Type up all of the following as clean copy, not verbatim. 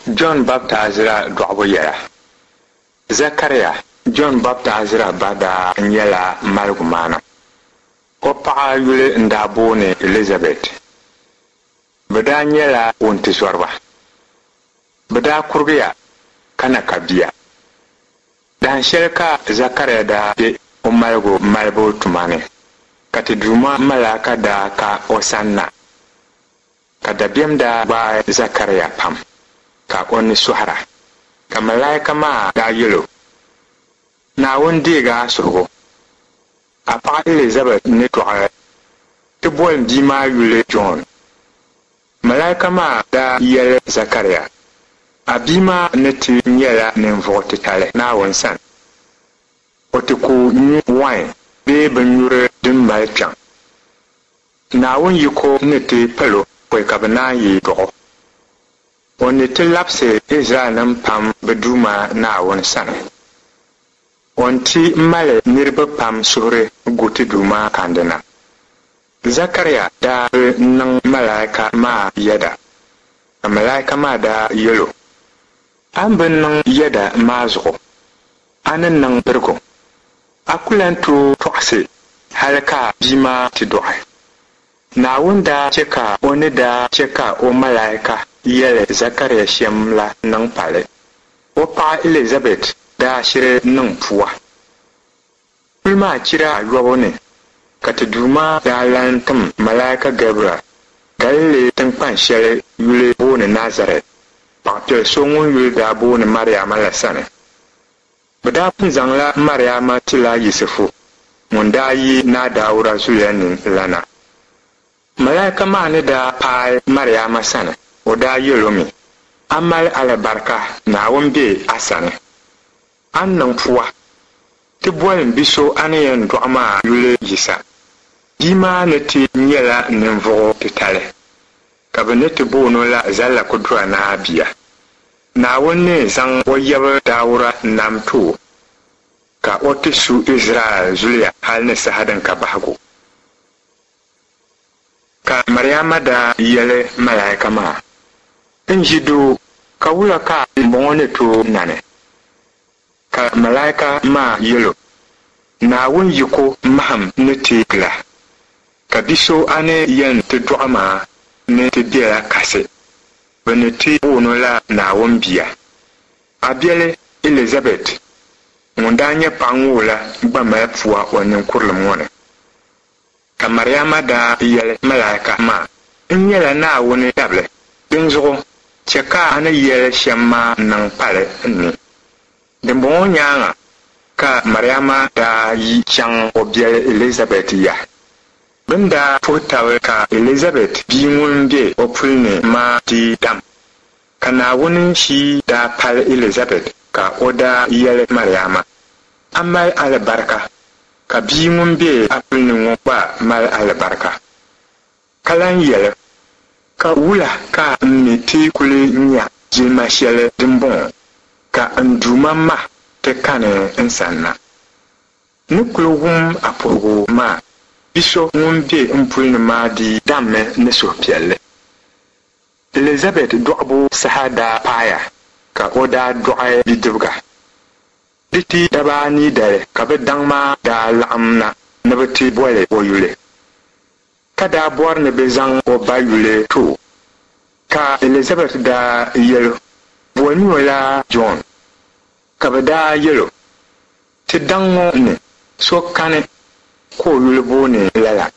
Jɔn Baptaizira dɔɣibu yɛla. Zakaria, Jɔn Baptaizira ba daa nyɛla maligumaana. O paɣa yuli n-daa booni Ɛlizabɛt. Bɛ daa nyɛla wuntizɔriba. Bɛ daa kurigiya ka na ka bia. Dahin shɛli ka Zakaria daa be o maligu malibu tuma ni, ka ti Duuma malaika daa ka o sanna. Ka dabiɛm daa gbaai Zakaria pam, ka o ni sɔhira. Ka malaika maa daa yɛl o, Naawuni deeg a suhigu. A paɣ Ɛlizabɛt ni dɔɣi ti boli bia maa yuli Jɔn. Malaika maa daa yɛli Zakaria, A bia maa ni ti nyɛla ninvuɣ titali Naawuni sani. O ti ku nyu wain bee binnyuri din mali kpiɔŋ. Naawuni yiko ni ti pal o pɔi ka bɛ naan yi dɔɣ o. O ni ti labisi Izraɛlnim pam bɛ Duuma Naawuni sani. O ni ti mali niriba pam suhuri gu ti Duuma kandina. Zakaria daa bi niŋ malaika maa yɛda, ka malaika maa daa yɛl o, A ni bi niŋ yɛda maa zuɣu, a ni niŋ birigu. A ku lan tooi tɔɣisi hal ka bia maa ti dɔɣi. Naawuni daa chɛ ka o ni daa chɛ ka o malaika yɛli Zakaria shɛm la niŋ pali. O paɣ Ɛlizabɛt daa shiri niŋ pua. Puli maa chira ayɔbu ni ka ti Duuma daa lan tim malaika Gabriɛl Galili tiŋkpan shɛli yuli booni Nazarɛt, paɣipiɛl so ŋun yuli daa booni Mariama la sani. Bɛ daa pun zaŋla Mariama tila Yisifu ŋun daa yi Naa Dauda zuliya ni la na. Malaika maa ni daa paai Mariama sani, o daa yɛl o mi, A mali alibarika, Naawuni be a sani. A ni niŋ pua ti boli m bi so a ni yɛn dɔɣi maa yuli Yisa. Bia maa ni ti nyɛla ninvuɣ titali, ka bɛ ni ti boon o la Zallakudura Naa Bia. Naawuni ni zaŋ o yab Dauda nam ti o, ka o ti su Izraɛl zuliya hal ni saha din ka bahigu. Ka Mariama daa yɛli malaika maa, N ʒi doo, ka wula ka m-bɔŋɔ ni tooi nani? Ka malaika maa yɛl o, Naawuni yiko mahim ni ti gil a, ka bi so a ni yɛn ti dɔɣi maa ni ti bela kasi, bɛ ni ti boon o la Naawuni Bia. A biɛli Ɛlizabɛt ŋun daa nyɛ paɣ ŋoo la gba mali pua o ninkurilim ŋɔ ni. Ka Mariama daa yɛli malaika maa, N nyɛla Naawuni dabili, dinzuɣu chɛ ka a ni yɛli shɛm maa niŋ pali n ni. Dimbɔŋɔ nyaaŋa ka Mariama daa yi chaŋ o biɛli Ɛlizabɛt ya. Bɛ ni daa puhi tab ka Ɛlizabɛt bia ŋun be o puli ni maa dii dam. Ka Naawuni shii daa pali Ɛlizabɛt ka o daa yɛli Mariama, A mali alibarika, ka bia ŋun be a puli ni ŋɔ gba mali alibarika. Ka lan yɛli, Ka wula ka m mi ti kuli nya jilima shɛli dimbɔŋɔ, ka n Duuma ma ti kani n sanna? N ni kuli wum a puhigu maa, bi so ŋun be m puli ni maa dii dammi ni suhupiɛlli. Ɛlizabɛt dɔɣibu saha daa paaya ka o daa dɔɣi bidibiga. Di ti daba anii dali ka bɛ daŋ maa daa laɣim na ni bɛ ti boli o yuli, ka daa bɔri ni bɛ zaŋ o ba yuli ti o. Ka Ɛlizabɛt daa yɛl o, Bolimi o la Jɔn. Ka bɛ daa yɛl o, Ti daŋ ŋɔ ni so kani ka o yuli booni lala.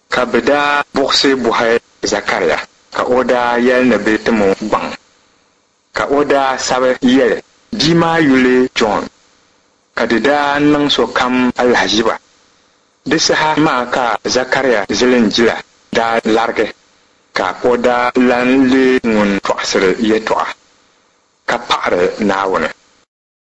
Ka bɛ daa buɣisi bɔhi Zakaria, ka o daa yɛli ni bɛ tim o gbaŋ. Ka o daa sabi yɛli, Bia maa yuli Jɔn. Ka di daa niŋ sokam alahiziba. Di saha maa ka Zakaria zilinjila daa larigi, ka o daa lan leei ŋun tɔɣisiri yɛtɔɣa, ka paɣiri Naawuni.